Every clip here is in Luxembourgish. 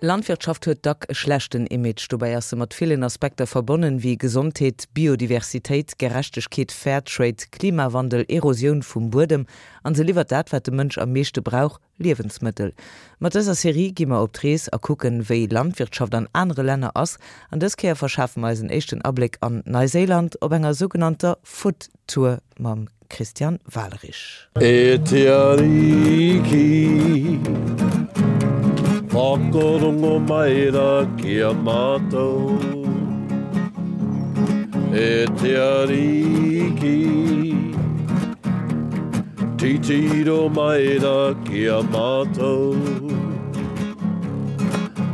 Landwirtschaft huet dack e schlechten Image. Dobäi ass se mat villen Aspekter verbonnen, wéi Gesondheet, Biodiversitéit, Gerechtegkeet, Fairtrade, Klimawandel, Erosioun vum Buedem. An se liwwert dat, wat de Mënsch am meeschte brauch, Liewensmëttel. Mat dëser Serie gi mer op d'Rees a kucken, wéi Landwirtschaft an anere Länner ass. An dës Kéier verschafe mer eis en éischten Abléck an Neiséiland op enger sougenannter Food Tour mam Christian Walerich. E te Ariki, whakarongo mai ra ki a matou. E te Ariki, titiro mai ra ki a matou.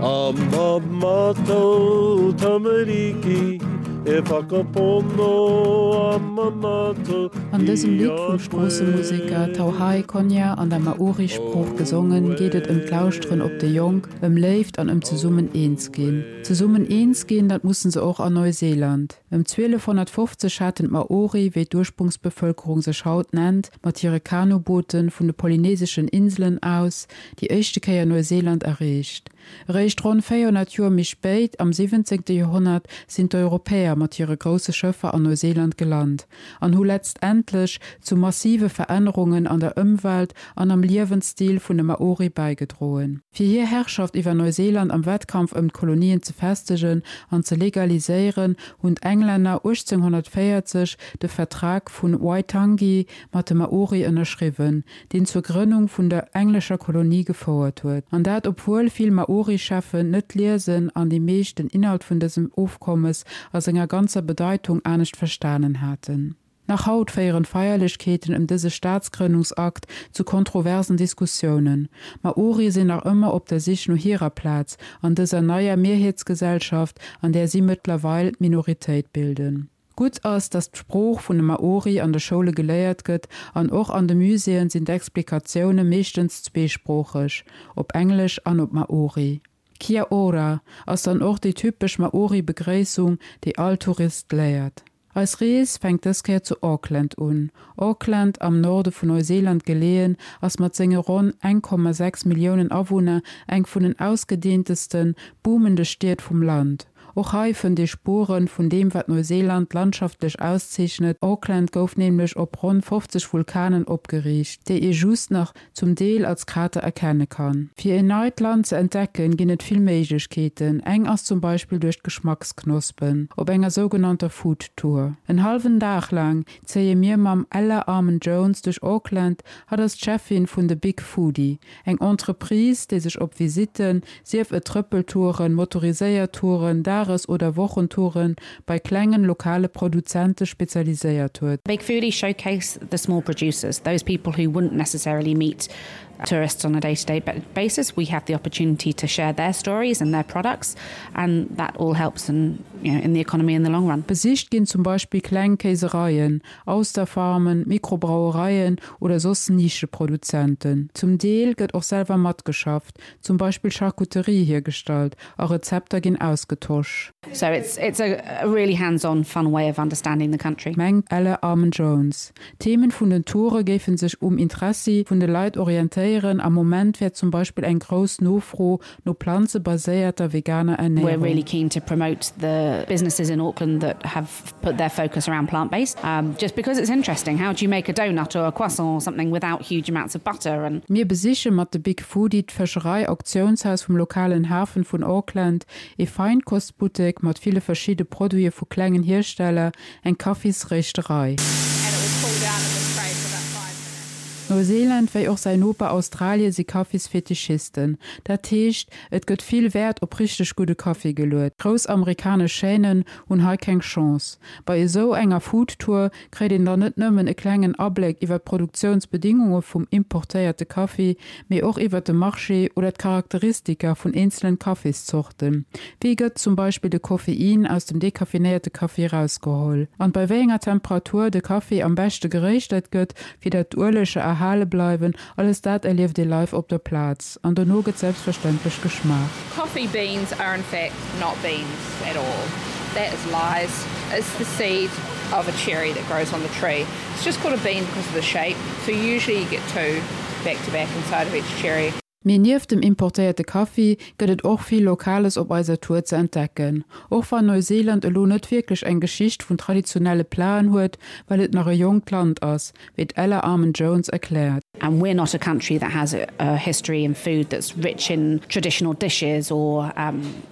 A ma matou tamariki, e whakapono a ma matou An dësem Lidd vum Stroossemuseker Tauhai Konya an der Maori-Sprooch gesongen, geet et ëm d'Lauschteren op déi Jonk, ëm Léift an ëm zesummen eens ginn. Zesummen eens ginn, dat mussen se och an Neuseeland. Ëm 1250 haten d'Maori, wéi d'Ursprungsbevëlkerung sech haut nennt, mat hire Kanuboote vun de polyneseschen Inselen aus déi éischte Kéier Neuseeland erreecht. Eréischt ronn 400 Joer méi spéit, am 17. Joerhonnert, sinn d'Europäer mat hire grousse Schëffer an Neuseeland gelant an hu letztendlech zu massive Verännerungen an der Ëmwelt an am Liewensstil vun de Maori bäigedroen. Fir hir Herrschaft iwwer Neuseeland am Wettkampf ëm d'Kolonien ze festegen an ze legaliséieren, hunn d'Englänner 1840 de Vertrag vun Waitangi mat de Maori ënnerschriwwen, deen zur Grënnung vun der englescher Kolonie gefouert huet. An dat obwuel vill Maori-Cheffen net liesen an déi meescht den Inhalt vun dësem Ofkommes a senger ganzer Bedeitung anescht verstanen haten. Nach haut féieren d'Feierlechkeeten ëm dëse Staatsgrënnungsakt zu kontroversen Diskussiounen. Maorie sinn nach ëmmer op der Sich no hirer Plaz an dëser neier Mierheetsgesellschaft, an där si mëttlerweil d'Minoritéit bilden. Gutt ass, datt d'Sprooch vun de Maori an de Schoule geléiert gëtt an och an de Muséeën sinn d'Explikatioune meeschtens zweesproocheg, op Englesch an op Maori. Kia ora ass dann och déi typesch Maori-Begréissung, déi all Tourist léiert. Eis Rees fänkt dës Kéier zu Auckland un. Auckland, am Norde vun Neuseeland geleeën, ass mat senge ronn 1,6 Milliounen Awunner eng vun den ausgedeenteste, boomende Stied vum Land. Och hei fënnt ee Spueren vun deem wat Neuseeland landschaftlech auszeechnet, Auckland gouf nämlech op ronn 50 Vulkanen opgeriicht, déi ee just nach zum Deel als Krater erkenne kann. Fir een neit Land ze entdecken ginn et vill Méiglechkeeten, eng ass zum Beispill duerch d'Geschmacksknospen op enger sougenannter Food Tour. En hallwen Dag laang zéie mir mam Ella Armand-Jones duerch Auckland, hatt ass d'Cheffin vun The Big Foodie, Eng Entreprise, déi sech op Visitten, sief et Trëppeltouren, motoriséiert Touren, Dages oder Wochentouren, bei klengen, lokale Produzente spezialiséiert huet. Big Foodie showcase the small producers, those people who wouldn't necessarily meet tourists on a day-to-day basis. We have the opportunity to share their stories and their products and that all helps in, you know, in the economy in the long run. Besicht ginn zum Beispill kleng Kéisereien, Austerfarmen, Mikrobrauereien oder soss Nischeproduzenten. Zum Deel gëtt och selwer matgeschafft, zum Beispill Charcuterie hiergestallt a Rezepter ginn ausgetosch. So it's it's a really hands-on fun way of understanding the country. Mengt Elle Armen-Jones. D'Themen vun den Toure géife sech um Interessi vun de Leit orientéieren, am Moment wär zum Beispill eng grouss Nofro no planzebaséierter veganer We're Ernärung. really keen to promote the businesses in Auckland that have put their focus around plant-based um, just because it's interesting. How do you make a donut or a croissant or something without huge amounts of butter and. Mir besiche mat de Big Foodie d'Fëscherei-Auktiounshaus vum lokalen Hafen vun Auckland, ee Feinkostbuttek mat ville verschidde Produite vu klengen Hiersteller, eng Kaffisréischterei. Neuseeland wéi och säin Noper Australie si Kaffisfetischisten. Dat heescht, et gëtt vill Wäert op richteg gudde Kaffi geluet. Grouss amerikanesch Chaînen hunn hei keng Chance. Bei esou enger Food Tour kréit een dann net nëmmen e klengen Abléck iwwer d'Produktiounsbedingunge vum importéierte Kaffi, mee och iwwer de Marché oder d'Charakteristika vun eenzelen Kaffiszorten. Wéi gëtt zum Beispill de Koffein aus dem dekaffinéierte Kaffi erausgeholl? An bei wéi enger Temperatur de Kaffi am beschte geréischtert gëtt, fir dat d'Ueleger erhale bleiwen, alles dat erlieft ee live op der Plaz. An dono gëtt selbstverständlech geschmaacht. Coffee beans are in fact not beans at all. That is lies. It's the seed of a cherry that grows on the tree. It's just called a bean because of the shape. So usually you get two back to back inside of each cherry. Mee nieft dem importéierte Kaffi gëtt et och vill Lokales op eiser Tour ze entdecken. Och wann Neuseeland elo net wierklech eng Geschicht vun traditionelle Platen huet, well et nach e jonkt Land ass, wéi d'Ella Armand-Jones erkläert. And we're not a country that has a history in food that's rich in traditional dishes or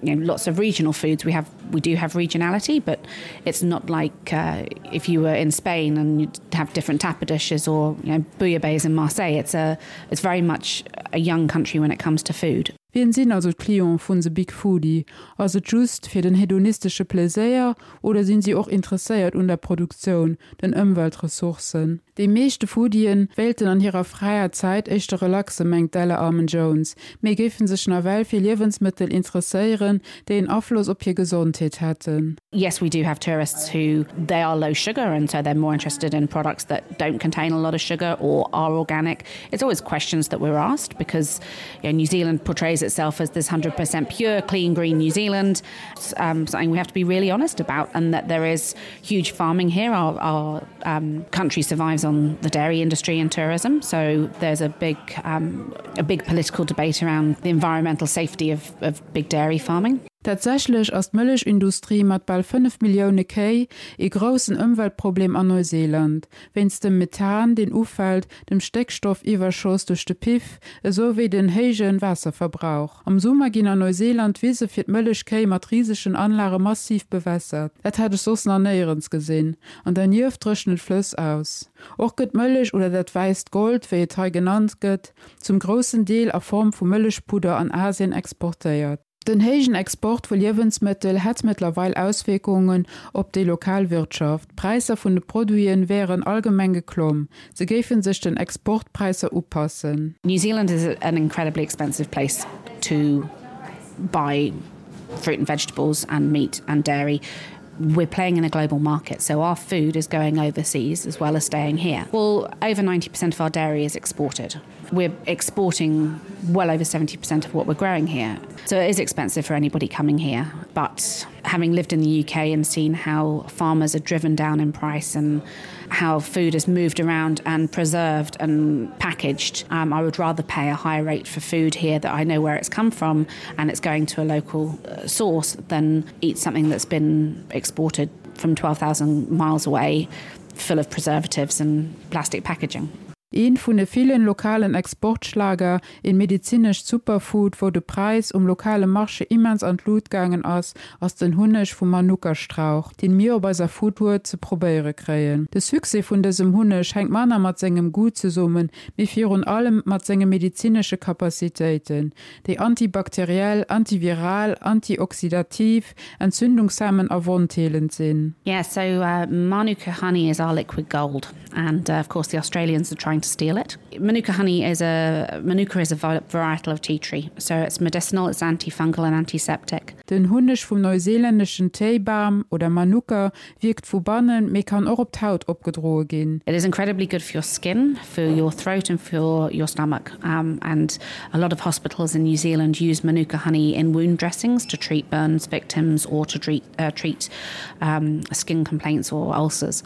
you know lots of regional foods. We have we do have regionality, but it's not like uh, if you were in Spain and you'd have different tapa dishes or you know, bouillabaisse in Marseille. It's a it's very much a young country when it comes to food. Wien sinn also d'Clienten vun The Big Foodie? Ass et just fir den hedonistesche Pleséier oder sinn si och interesséiert un der Produktioun, den Ëmweltressourcen? Déi meeschte Foodien wéilten an hirer fräier Zäit éischter relaxen, mengt d'Ella Armen-Jones, mee géifen sech nawell fir Liewensmëttel interesséieren, déi en Afloss op hir Gesondheet hätten. Yes, we do have tourists who they are low sugar and so they're more interested in products that don't contain a lot of sugar or are organic. It's always questions that we're asked because you know, New Zealand portrays itself as this 100% pure, clean, green New Zealand. It's um, something we have to be really honest about and that there is huge farming here. Our, our um, country survives on the dairy industry and tourism, so there's a big, um, a big political debate around the environmental safety of, of big dairy farming. Tatsächlech ass d'Mëllechindustrie mat bal 5 Millioune Kéi ee groussen Ëmweltproblem an Neuseeland. Wéinst dem Methan, deen ufält, dem Stéckstoffiwwerschoss duerch de Piff, esou wéi den héije Waasserverbrauch. Am Summer ginn an Neuseeland d'Wise fir d'Mëllechkéi mat risegen Anlage massiv bewässert. Dat hat ech soss nach néierens gesinn. An dernieft dréchnen d'Flëss aus. Och gëtt d'Mëllech, oder dat wäisst Gold, wéi et hei genannt gëtt, zum groussen Deel a Form vu Mëllechpudder an Asien exportéiert. Den héijen Export vu Liewensmëttel hätt mëttlerweil Auswierkungen op déi lokal Wirtschaft. D'Präisser vun de Produite wären allgemeng geklomm. Se géife sech den Exportpräisser upassen. New Zealand is an incredibly expensive place to buy fruit and vegetables and meat and dairy. We're playing in a global market, so our food is going overseas as well as staying here. Well, over 90% of our dairy is exported. We're exporting well over 70% of what we're growing here. So it is expensive for anybody coming here. But having lived in the UK and seen how farmers are driven down in price and how food is moved around and preserved and packaged, um, I would rather pay a higher rate for food here that I know where it's come from and it's going to a local uh, source than eat something that's been exported from 12,000 miles away full of preservatives and plastic packaging. Een vun de villen lokalen Exportschlager, een medizinescht Superfood, wou de Präis um lokale Marché immens an d'Lut gaangen ass, ass den Hunneg vum Manuka-Strauch, deen mir op eiser Foodtour ze probéiere kréien. De Succès vun dësem Hunneg hänkt manner mat sengem Goût zesummen, mee virun allem mat senge medizinesche Capacitéiten, déi antibakteriell, antiviral, antioxidativ, entzündungshemmend a wondheelend sinn. Yeah, so Manuka honey is our liquid gold and of course the Australians are trying to steal it. Manuka honey is a Manuka is a varietal of tea tree, so it's medicinal, it's antifungal and antiseptic. Den Hunneg vum neuseelänneschen Téibam oder Manuka wierkt vu bannen, mee kann och op d'Haut opgedroe ginn. It is incredibly good for your skin, for your throat and for your stomach and a lot of hospitals in New Zealand use Manuka honey in wound dressings to treat burns victims or to treat treat skin complaints or ulcers.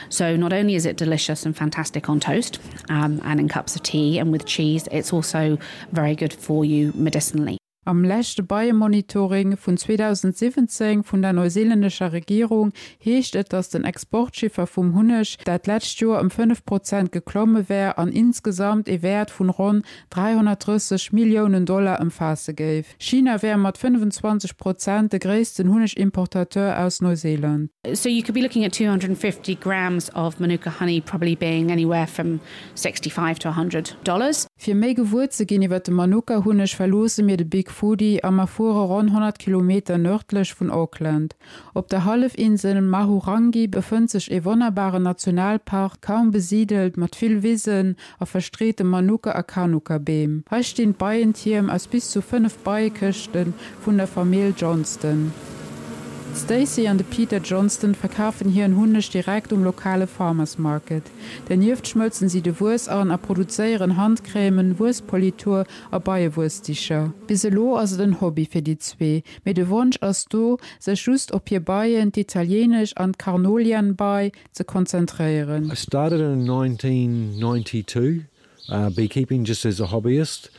So not only is it delicious and fantastic on toast and in cups of tea and with cheese, it's also very good for you medicinally. Am leschte Beiemonitoring vun 2017 vun der neuseelännescher Regierung heescht et, datt den Exportchiffer vum Hunneg dat lescht Joer ëm 5 Prozent geklomme wär an insgesamt ee Wäert vun ronn 330 Milliounen Dollar ëmfaasse géif. China wär mat 25 Prozent de gréissten Hunnegimportateur aus Neuseeland. So you could be looking at 250 grams of Manuka honey probably being anywhere from 65 to 100 dollars. Fir méi gewuer ze ginn iwwer de Manuka-Hunneg verloosse mir de Big Foodie a mer fuere ronn 100 Kilometer nërdlech vun Auckland. Op der Hallefinsel Mahurangi befënnt sech ee wonnerbaren Nationalpark, kaum besidelt, mat vill Wisen a verstreete Manuka a Kanuka-Beem. Hei stinn d'Beientierm aus bis zu 5 Beiekëschte vun der Famill Johnston. D'Stacey an de Peter Johnston verkafen hiren Hunneg direkt um lokale Farmers Market. Dernieft schmëlzen si de Wuess an a produzéieren Handcrèmen, Wuesspolitur a Beiewuessdicher. Bis elo ass et en Hobby fir déi zwee, mee de Wonsch ass do, sech just op hir Beien, d'italieenesch an d'Carnolian-Bei, ze konzentréieren. I started in 1992 beekeeping just as a hobbyist.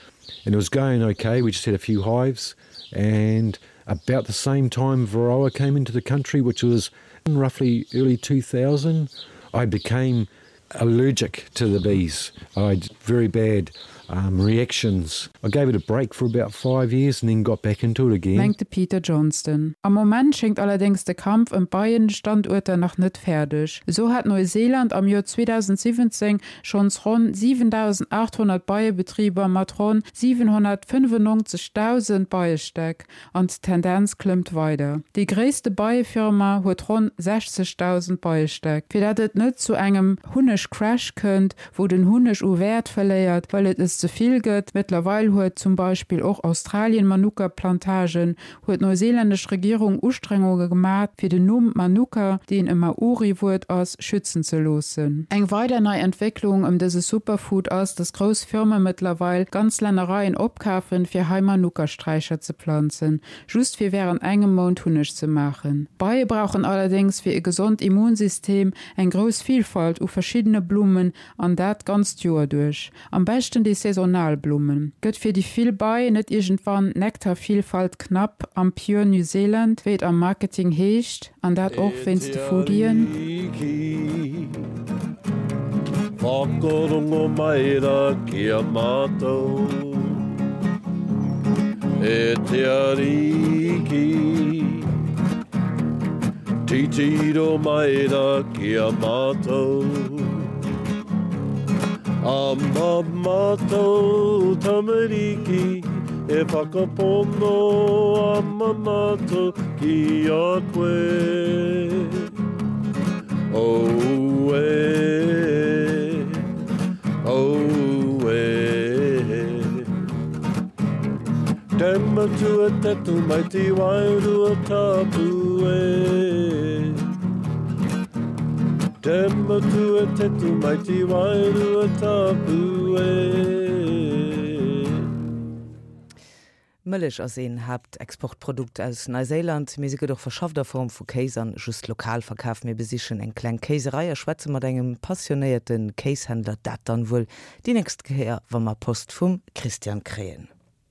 And it was going okay, we just had a few hives and about the same time Varroa came into the country, which was roughly early 2000, I became allergic to the bees. I had very bad um, reactions. I gave it a break for about five years and then got back into it again. Mengt de Peter Johnston. Am Moment schéngt allerdéngs de Kampf ëm d'Beienstanduerter nach net fäerdeg. Esou hat Neuseeland am Joer 2017 schonns ronn 7.800 Beiebetriber mat ronn 795.000 Beiestäck an d'Tendenz klëmmt weider. Déi gréisste Beiefirma huet ronn 60.000 Beiestäck. Fir dat et net zu engem Hunneg-Crash kënnt, wou den Hunneg u Wäert verléiert, well et es ze vill gëtt, mëttlerweil huet zum Beispill och Australien Manuka-Plantagen, huet d'neuseelännesch Regierung Ustrengunge gemat, fir den Numm Manuka, deen e Maori-Wuert ass, schützen ze loossen. Eng weider nei Entwécklung ëm dëse Superfood ass, dass grouss Firme mëttlerweil ganz Lännereien opkafen, fir hei Manuka-Straicher ze planzen, just fir wärend engem Mount Hunneg ze maachen. D'Beie brauchen allerdéngs fir e gesond Immunsystem eng grouss Vilfalt u verschiddene Blummen an dat d'ganzt Joer duerch. Am beschten déi saisonal Blummen. Gëtt fir déi vill Bei net iergendwann d'Nektarvielfalt knapp am Pure New Zealand, wéi et am Marketing heescht, an dat och wéinst de Foodien? Whakarongo mai ra ki a mātou E te Ariki Titiro mai ra ki a mātou A mā mātou tamariki E whakapono a mā mātou ki a koe Auē, auē Te matua te tamaiti wairua tapu e Te matua te tamaiti wairua tapu e. Mëllech ass een Haaptexportprodukt aus Neiséiland, mee se gëtt och verschafft a Form vu Kéis an just lokal verkaf. Mir besichen eng kleng Kéiserei a schwätze mat engem passionéierte Kéishändler. Dat dann wuel déi nächst Kéier, wa mer Post vum Christian kréien.